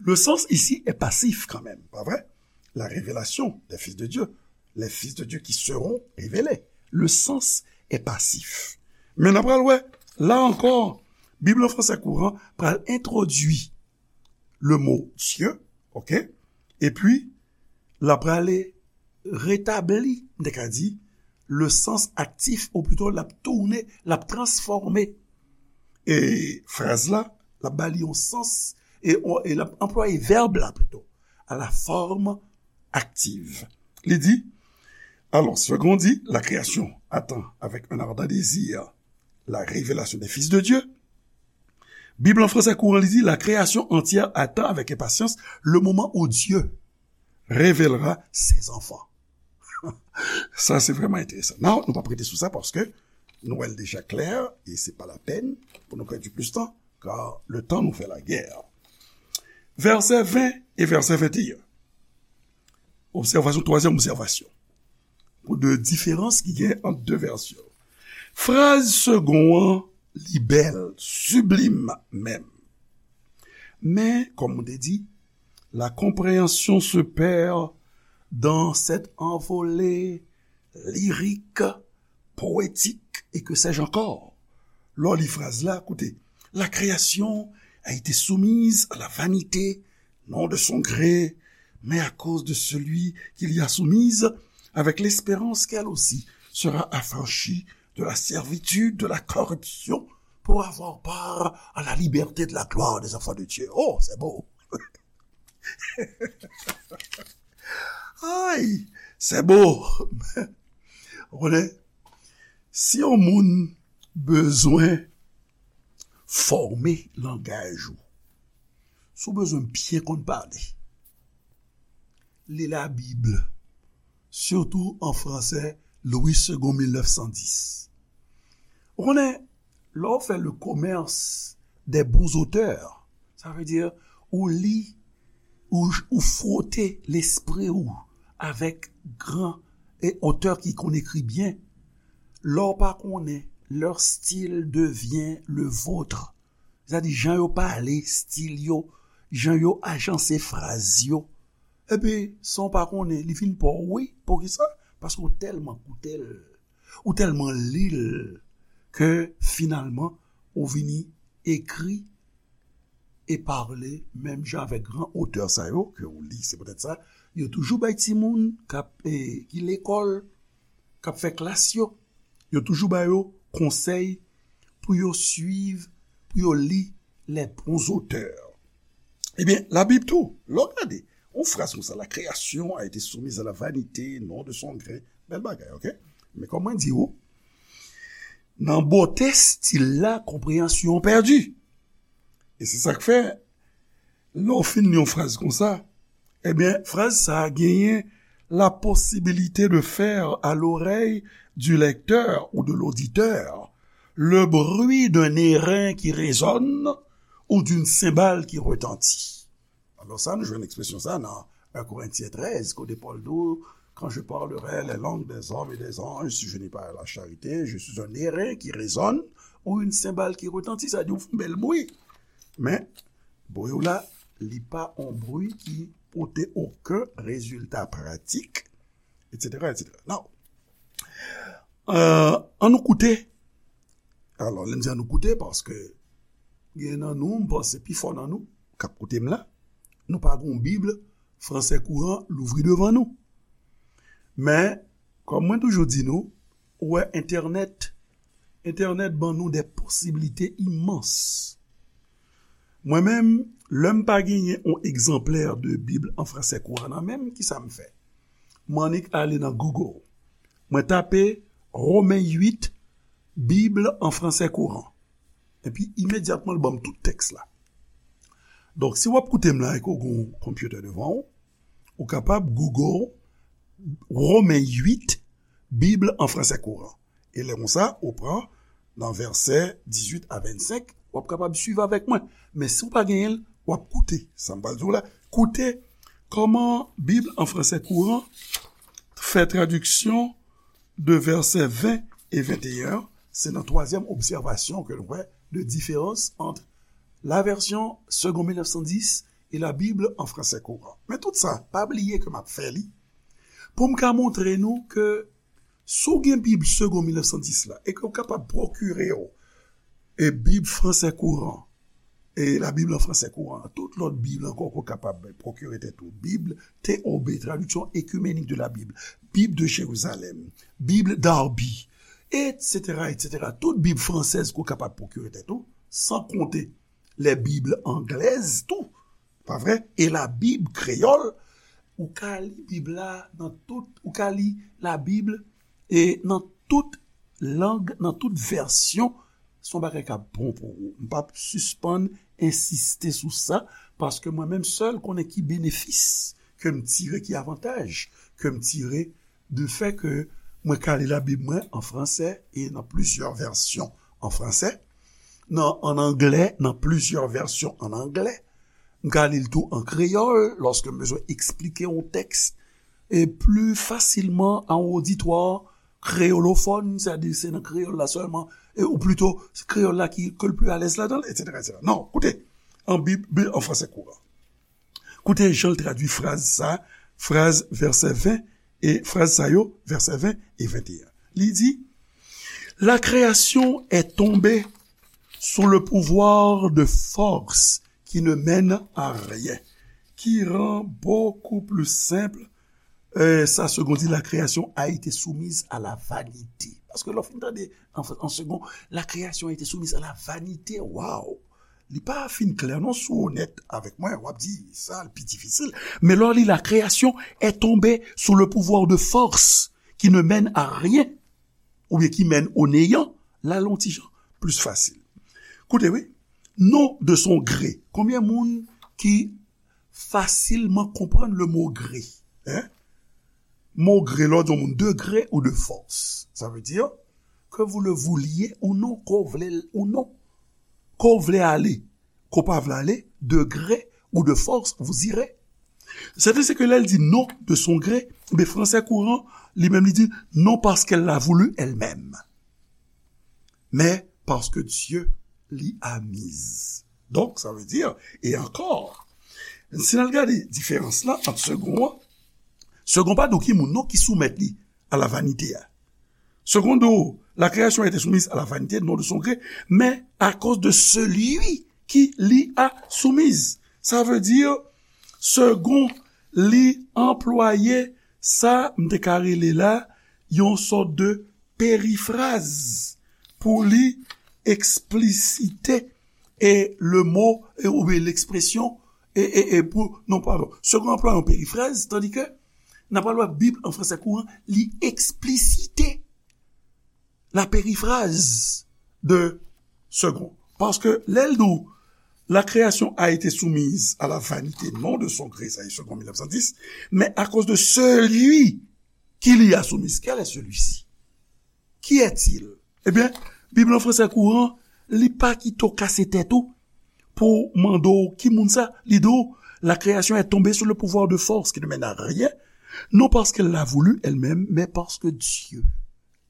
Le sens ici est passif quand même, pas vrai? La révélation des fils de Dieu, les fils de Dieu qui seront révélés. Le sens est passif. Men n ap pral wè, la ankò, Bib an fransè kouran pral entwodui le mo Dieu, ok? Epi, l ap prale retabli, m te ka di, le sens actif, ou plito l ap tounen, l ap transfòme, e, fraz la, l ap ba li yon sans, e, e l ap anplwaye vèb la plito, à la forme active. Li di, alors, Segond dit, la création attend avec un ardent désir la révélation des fils de Dieu. Bib an fransè kouran, li di, la création entière attend avec impatience le moment où Dieu révélera ses enfants. Sa, se vrèman enteresan. Nan, nou p ap rete sou sa paske nou wè l deja klè e se pa lapèn pou nou pèdi plis tan, kar le temps nous fait la guerre. Vèsè ven e vèsè venteyen. Obsèvasyon, twazyèm obsèvasyon. Pou de diferans ki gen ant de vèsyon. Fraz segon an, li bèl, siblim menm. Men, kòm mwen te di, la compréhension se perd dans cette envolée lyrique, poétique et que sais-je encore. Lè w li fraz la, koute, la création a été soumise à la vanité, non de son gré, mais à cause de celui qui l'y a soumise, avec l'espérance qu'elle aussi sera affranchie de la servitude, de la corruption, pour avoir part à la liberté de la gloire des enfants de Dieu. Oh, c'est beau. Ay, c'est beau. Ou konnen, si yon moun bezwen fòme langaj ou, si w bezwen byen konn pale, li Labib, sitou an fransè, Louis Segond mil nèf san dis. Ou konnen, lè w fè le commerce des bons auteurs, sa vle di, ou li, ou, ou fwote lespri ou avèk gran e otè ki konn ekri byen. Lè w pa konnen, leur style devient le vôtre. Sa di, jan yo pale, stil yo, jan yo ajanse fraz yo. Epi, san w pa konnen, li vin pa w, wi. Poukisa? Paske w tèlman koute l, ou tèlman li l, ke finalman, ou vini ekri e pale menm jan avèk gran otè sa yo ke w li. Se poutèt sa, yo toujou bay timoun k ap, eh, ki lekòl, k ap fè klas yo, yo toujou ba yo konsèy pou yo swiv, pou yo li les bons auteurs. Ebyen, Labib tou, lè w gade, yon fraz konsa, la création a été soumise à la vanité, non de son gré. Bèl bagay, oke? Men kòm mwen di w, nan bote stil la, konpreyansyon an pèdi. E se sa k fè, lè w fin li yon fraz konsa, ebyen, fraz sa a genyen la possibilité de faire à l'oreille du lecteur ou de l'auditeur le bruit d'un airain qui résonne ou d'une cymbale qui retentit. Alò sa, nou jwenn ekspresyon sa nan un Corinthiens treize, kote Pòl di w, quand je parlerai les langues des hommes et des anges, si je n'ai pas la charité, je suis un airain qui résonne ou une cymbale qui retentit. Sa di w fè yon bèl bri. Men, bri w la, li pa yon bri ki pote okenn rezilta pratik, etsetera, etsetera. Now, euh, ann nou koute. Alò, lè m di ann nou koute, paske gen nan nou, m panse pi fò nan nou, k ap koute m la, nou pa gen yon Bib fransè kouran louvri devan nou. Men, kòm mwen toujou di nou, ou wè entènèt, entènèt ban nou de posibilite imans. Mwen menm, lè m pa genyen yon egzanplè de Bib an fransè kouran nan men m, kisa m fè? M annik ale nan Google. Mwen tape Romen uit, Bib an fransè kouran. Epi imedyatman, l ban m tout tèks la. Donk, si w ap koute m la e ke w gen yon konpyitè devan w, ou kapab Google Romen uit, Bib an fransè kouran. E lè konsa, ou pran nan vèsè dizuit a vennsenk, w ap kapab swiv avèk mwen. Men si w pa genyen l, w ap koute. Sa m pral di w la, koute kòman Bib an fransè kouran fè tradiksyon de vèsè ven e venteyen an. Se nan twazyèm obsèvasyon ke nou wè de diferans ant la version Segond mil nèf san dis e la Bible en français courant. Men tout sa, pa bliye ke m ap fè li pou m ka montre nou ke si w gen Bib Segond mil nèf san dis la e ke w kapab pwokire w e Bib fransè kouran, e la Bible en français courant, tout lòt Bib ankò ke w kapab pwokire tèt ou, Bib T O B, Traduction Œcuménique de la Bible, Bible de Jérusalem, Bible Darby, etsetera, etsetera. Tout Bib fransèz ke w kapab pwokire tèt ou, san konte les Bibles anglaises tou, pa vre? E la Bib kreyòl, ou ka li Bib la nan tout, ou ka li la Bib e nan tout lang, nan tout vèsyon se yon bagay k ap bon pou ou. M p ap sispann ensiste sou sa, paske mwen menm sèl konnen ki benefis ke m tire, ki avantaj ke m tire de fè ke mwen ka li Labib mwen an fransè e nan plizyè vèsyon an fransè, nan, an anglè, nan plizyè vèsyon an anglè. M ka li l tou an kreyòl, lòske m bezwen eksplike yon tèks e pli fasilman a yon oditwa kreyolofòn, sètadi se nan kreyòl la sèlman, e, ou plito, se kreyòl la ki, ke l pli alèz ladan l, etsetera, etsetera. Non, koute, an Bib, Bib an fransè kouran. Koute jan l tradui fraz sa, fraz vèsè ven, e fraz sa yo, vèsè ven e venteyen. Li di, La création est tombée sous le pouvoir de forces qui ne mènent à rien, qui rend beaucoup plus simple, euh, ça, Segond dit, la création a été soumise à la vanité. Paske lè w fin tande an, an Segond, la création a été soumise à la vanité. Waw! Li pa fin klè non, si w onèt avèk mwen, w ap di sa l pi difisil. Men lè w li, la création est tombée sous le pouvoir de forces qui ne mènent à rien, oubyen ki mennen o neyan, la l yon ti jan plis fasil. Koute, wi, non de son gré. Konbyen moun ki fasilman konprann le mo gré? Hein? Mo gré, lè w di yon moun de gré ou de force, ça veut dire que vous le vouliez ou non, ke w vle l ou non, ke w vle ale, ke w pa vle ale, de gré ou de force, vous irez. Sètadi se ke lè l di non de son gré, ben, fransè kouran, li menm li di non parce qu'elle l'a voulu elle-même, mais parce que Dieu l'y a mise. Donc, ça veut dire, et encore, si n al gade diferans la ant Segond an, Segond pa di w ki moun non ki soumèt li a lavanite a. Segond di w, la création a été soumise à la vanité, non de son gré, mais à cause de celui qui l'y a soumise. Sa vle di, Segond, li anplwaye sa m te ka rele la yon sòt de perifraz pou li eksplisite e le mo e, oubyen lekspresyon e, e, e pou, non, padon, Segond anplwaye yon perifraz, tandi ke n ap pral wè Bib an fransè kouran, li eksplisite la périphrase de Segond. Paske lè l di w, la création a été soumise à la vanité, non de son gré, sa e Segond mil nèf san dis, mais à cause de celui qui l'y a soumise. Quel est celui-ci? Qui est-il? Ebyen, Bib lan fransè kouran, li pa kite w kase tèt ou pou mande w ki moun sa, li di w, la création est tombée sous le pouvoir de forces qui ne mènent à rien, non parce qu'elle l'a voulu elle-même, mais parce que Dieu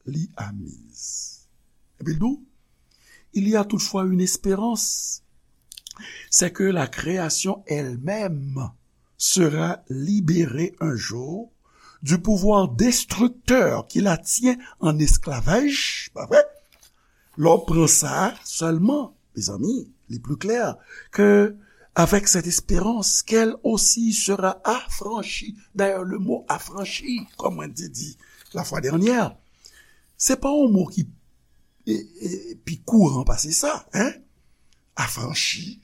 l'y a mise. Epi l di w, il y a toutefois une espérance, c'est que la création elle-même sera libérée un jour du pouvoir destructeur qui la tient en esclavage, pa vre? Lè w pran sa sèlman, mezanmi, li pli klè ke avec cette espérance qu'elle aussi sera affranchie. D'ailleurs, le mot affranchi, comme on dit, dit la fois dernière, se pa yon mo ki e, e, pi kouran pase sa, hein? Affranchi.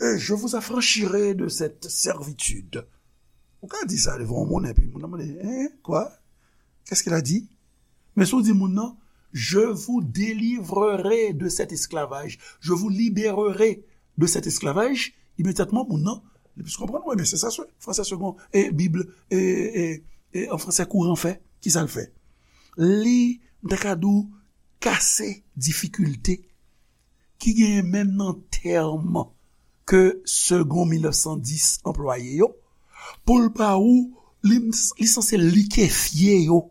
Euh, je vous affranchirai de cette servitude. Ou ka di sa devan yon moun, epi moun nan mande, hein? Quoi? Qu'est-ce qu'il a dit? Men si w di moun nan, je vous délivrerai de cet esclavage, je vous libérerai de cet esclavage, imedyatman moun nan, li plis konprann, wi, men se sa, se, fransè Segond, e Bib, e, e, e an fransè kouran fè, ki sa l fè? Li, m ta ka di w, kase difikilte ki genyen menm nan tèm ke Segond mil nèf san dis anplwaye yo, pou l ba ou, li, li sanse likefye yo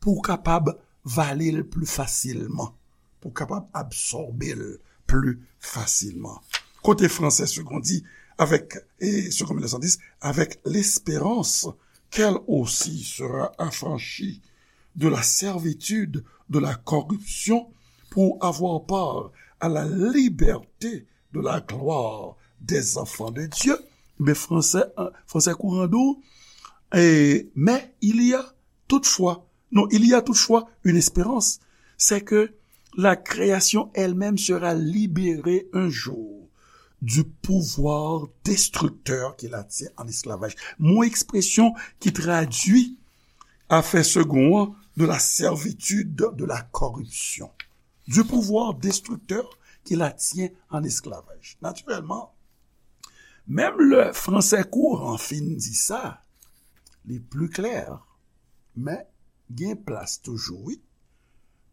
pou w kapab vale l pli fasilman, pou w kapab absòbe l pli fasilman. Kote fransè Segond di, avec, et Segond mil nèf san dis, avec l'espérance qu'elle aussi sera affranchie de la servitude de la corruption pour avoir part à la liberté de la gloire des enfants de Dieu. Men fransè, fransè kouran di w, e, mais il y a toutefois, non, il y a toutefois une espérance, c'est que la création elle-même sera libérée un jour du pouvoir destructeur qui la tient en esclavage. Mo ekspresyon ki tradui afè Segond an, de la servitude de la corruption. du pouvoir destructeur qui la tient en esclavage. Naturellement, menm lè fransè kouran fin di sa, li pli klè, men gen plas toujou, wi,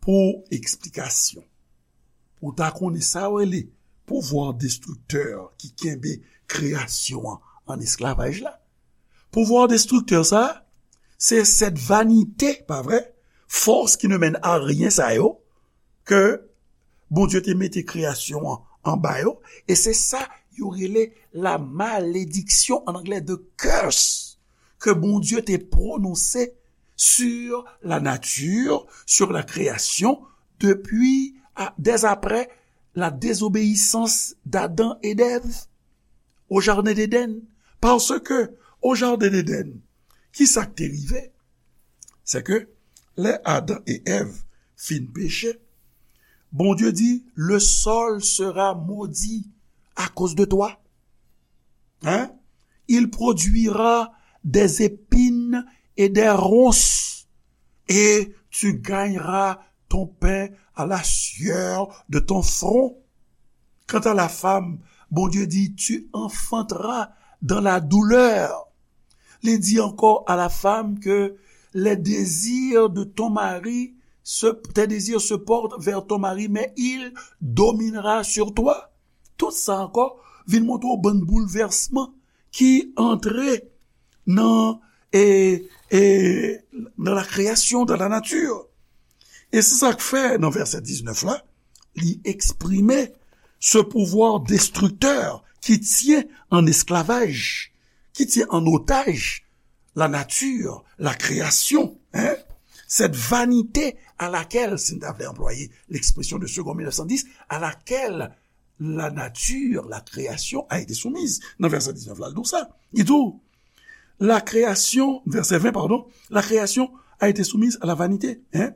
pou eksplikasyon. Pou ta konnen sa yo rele pouvwa destriktè ki kenbe kreyasyon an an esklavaj la. Pouvwa destriktè sa, se sèt vanite, pa vre? Fòs ki ne mèn a ryen sa yo, ke Bondye te mete kreyasyon an anba yo, e se sa yo rele la malediksyon, an anglè, the curse, ke Bondye te pwononse sur la nature, sur la création, depuis, à, dès après la désobéissance d'Adam et d'Ève au jardin d'Éden. Paske, au jardin d'Éden, ki sa k te rive? Se ke lè Adan e Èv fin peche, Bondye di, le sol sera maudit à cause de toi. Hein? Il produira des épines et des ronces, et tu gagneras ton pain à la sueur de ton front. Quant à la femme, Bondye di, tu enfanteras dans la douleur. Li di encore à la femme que les désirs de ton mari, se, tes désirs se portent vers ton mari, mais il dominera sur toi. Tout sa ankò vin montre w bann boulvèsman ki antre nan, e, e, nan la création, dans la nature. E se sa k fè, nan vèsè diznèf la, li eksprime ce pouvoir destructeur qui tient en esclavage, qui tient en otage la nature, la création, hein? Cette vanité à laquelle, si n ta vle anplwaye l'expression de Segond mil nèf san dis, à laquelle la nature, la création a été soumise. Nan vèsè diznèf la, l di w sa. Li di w, la création, vèsè ven, pardon, la création a été soumise à la vanité, hein?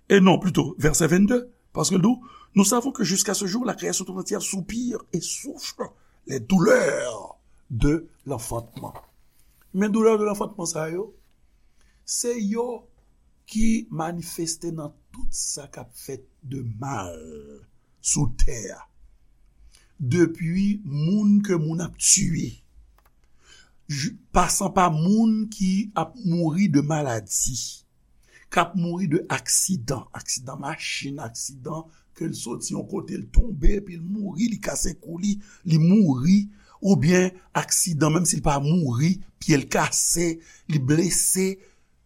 Et non, plutôt, verset vingt-deux, parce que nous, nous savons que jusqu'à ce jour, la création tout entière soupire et souffre les douleurs de l'enfantement. Men doulè de l'enfantement sa yo, se yo ki manifeste nan tout sa k ap fèt de mal sou tè a. Depi moun ke moun ap tiye, pasan pa moun ki ap mouri de maladi, k ap mouri de aksidan, aksidan machin, aksidan ke l soti yon kote, l tonbe, epi l mouri, li kase kou li, li mouri, oubyen aksidan, menm si l pa mouri, pye l kase, li blese,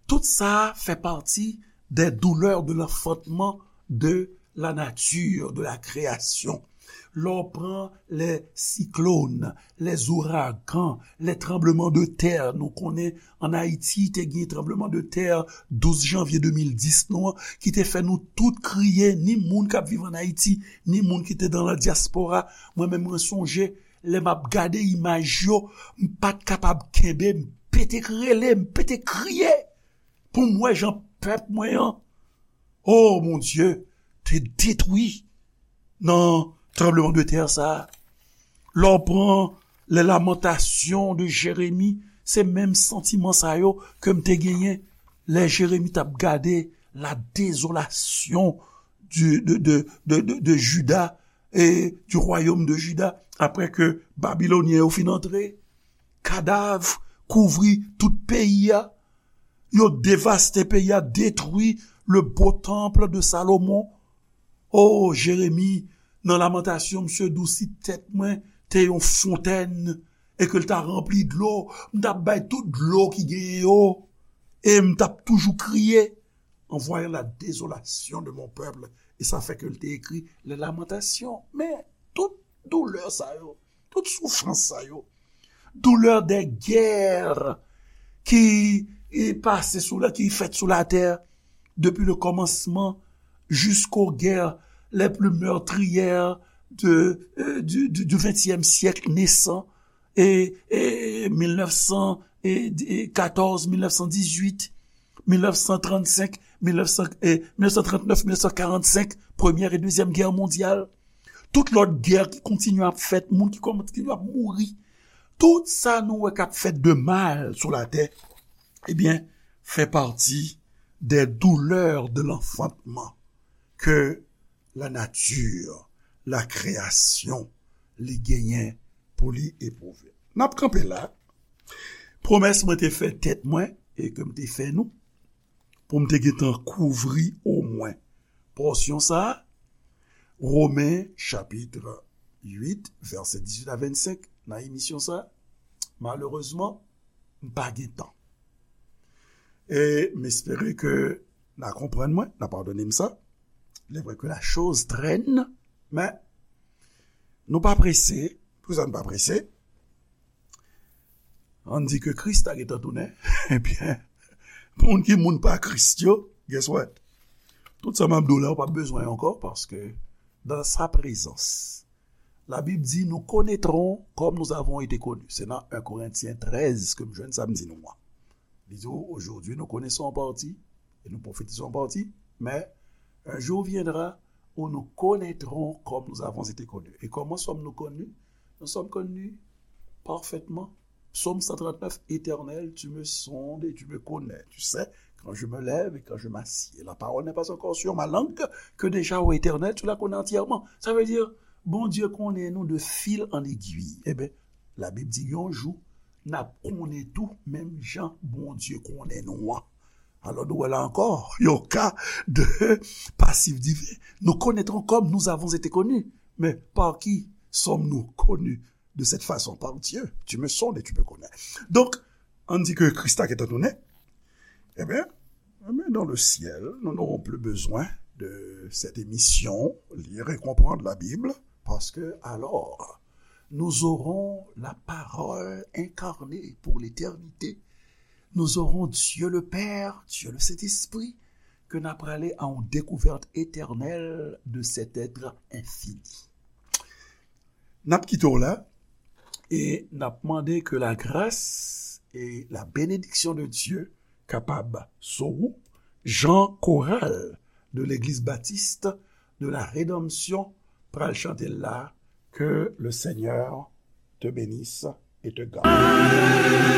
tout sa fè pati des douleurs de l'enfantement, de la nature, de la création. Lè w pran les cyclones, les ouragans, les tremblements de terre, nou konnen an Ayiti te gen tranbleman de tè douz janvye de mil dis nou an, ki te fè nou tout kriye, ni moun k ap viv an Ayiti, ni moun ki te nan la diaspora. Mwen menm, mwen sonje, lè m ap gade imaj yo, m pa t kapab kenbe, m pete k rele, m pete kriye pou m wè jan pèp mwen an, o Bondye, te detwi nan tranbleman de tè sa a. Lè w pran les Lamentations de Jérémie, se menm santiman sa yo ke m te genyen lè Jeremi t ap gade la désolation du, de, de, de, de, de Juda et du royaume de Juda, apre ke Babilonyen yo fin antre. Kadav kouvri tout peyi a. Yo devaste peyi a, detwi le beau temple de Salomon. O, Jeremi, nan Lamantasyon, misye di w, si tèt mwen te yon fontèn e ke l ta ranpli dlo, m t ap bay tout dlo ki genyen yo, e m t ap toujou kriye en voyant la désolation de mon peuple. E sa fè ke l te ekri les Lamentations. Men, tout doulè sa yo, tout soufrans sa yo, doulè de gè ki, e, pase sou la, ki fèt sou latè, depi le kòmansman jisko gè les plus meurtrières de, euh, du, du, du vingtième siècle naissant, e, e mil nèf san katòz, mil nèf san dizuit, mil nèf san trannsenk, mil nèf san, e, mil nèf san trannèf, mil nèf san karannsenk, Premyè e Dezyèm Gè Mondyal. Tout lòt gè ki kontinye ap fèt, moun ki kontinye ap mouri. Tout sa nou wè k ap fèt de mal sou latè, ebyen, fè pati des douleurs de l'enfantement ke la nature, la création, li genyen pou li epwouve. N ap kanpe la. Pwomès mwen te fè tèt mwen e ke m te fè nou, pou m te gentan kouvri omwen pòsyon sa a, Women chapit uit, vèsè dizuit a vennsenk, nan emisyon sa a, malerezman, m pa gen tan. E m espere ke n a konprann mwen, n a padone m sa. Il est vrai que la chose traîne, men nou pa prese. Poukisa n pa prese? Ann di ke Kris ta gentan tounen. Ebyen, moun ki moun pa Kris yo, guess what? Tout sa m ap di w la, ou p ap bezwen ankò, paske dans sa présence, la Bible dit, nous connaîtrons comme nous avons été connus. Se nan un Korentyen trèz ke m jwenn sa m di nou an. Li di, aujourd'hui, nous connaissons en partie, et nous prophétisons en partie, mais un jour viendra où nous connaîtrons comme nous avons été connus. Et comment sommes-nous connus? Nous sommes connus parfaitement. Psaume cent trente-neuf, Éternel, tu me sondes et tu me connais. Tu sais quand je me lève et quand je m'assieds. La parole n'est pas encore sur ma langue, que déjà, ô Éternel, tu la connais entièrement. Ça veut dire, Bondye konnen nou de fil en aiguille. Ebyen, Labib di yon jou, n ap konnen tou, menm jan Bondye konnen nou an. Alò, nou wè la ankò, yon ka de pasif diven. Nous connaîtrons comme nous avons été connus. Mais par qui sommes-nous connus de cette façon? Par Dieu. Tu me sondes et tu me connais. Donc, ann di ke Kris ta gentan tounen. Ebyen, ebyen, dans le ciel, nous n'aurons plus besoin de cette émission, lire et comprendre la Bible, parce que alors, nous aurons la parole incarnée pour l'éternité. Nous aurons Dieu le Père, Dieu le Saint-Esprit, ke n ap prale a yon dekouvèt etènèl de cet être infini. N ap kite w la e n ap mande ke la grâce et la bénédiction de Dieu kapab sou ou, jan koral de Legliz Batis de la Redanmsyon pral chante l la, que le Seigneur te bénisse et te garde.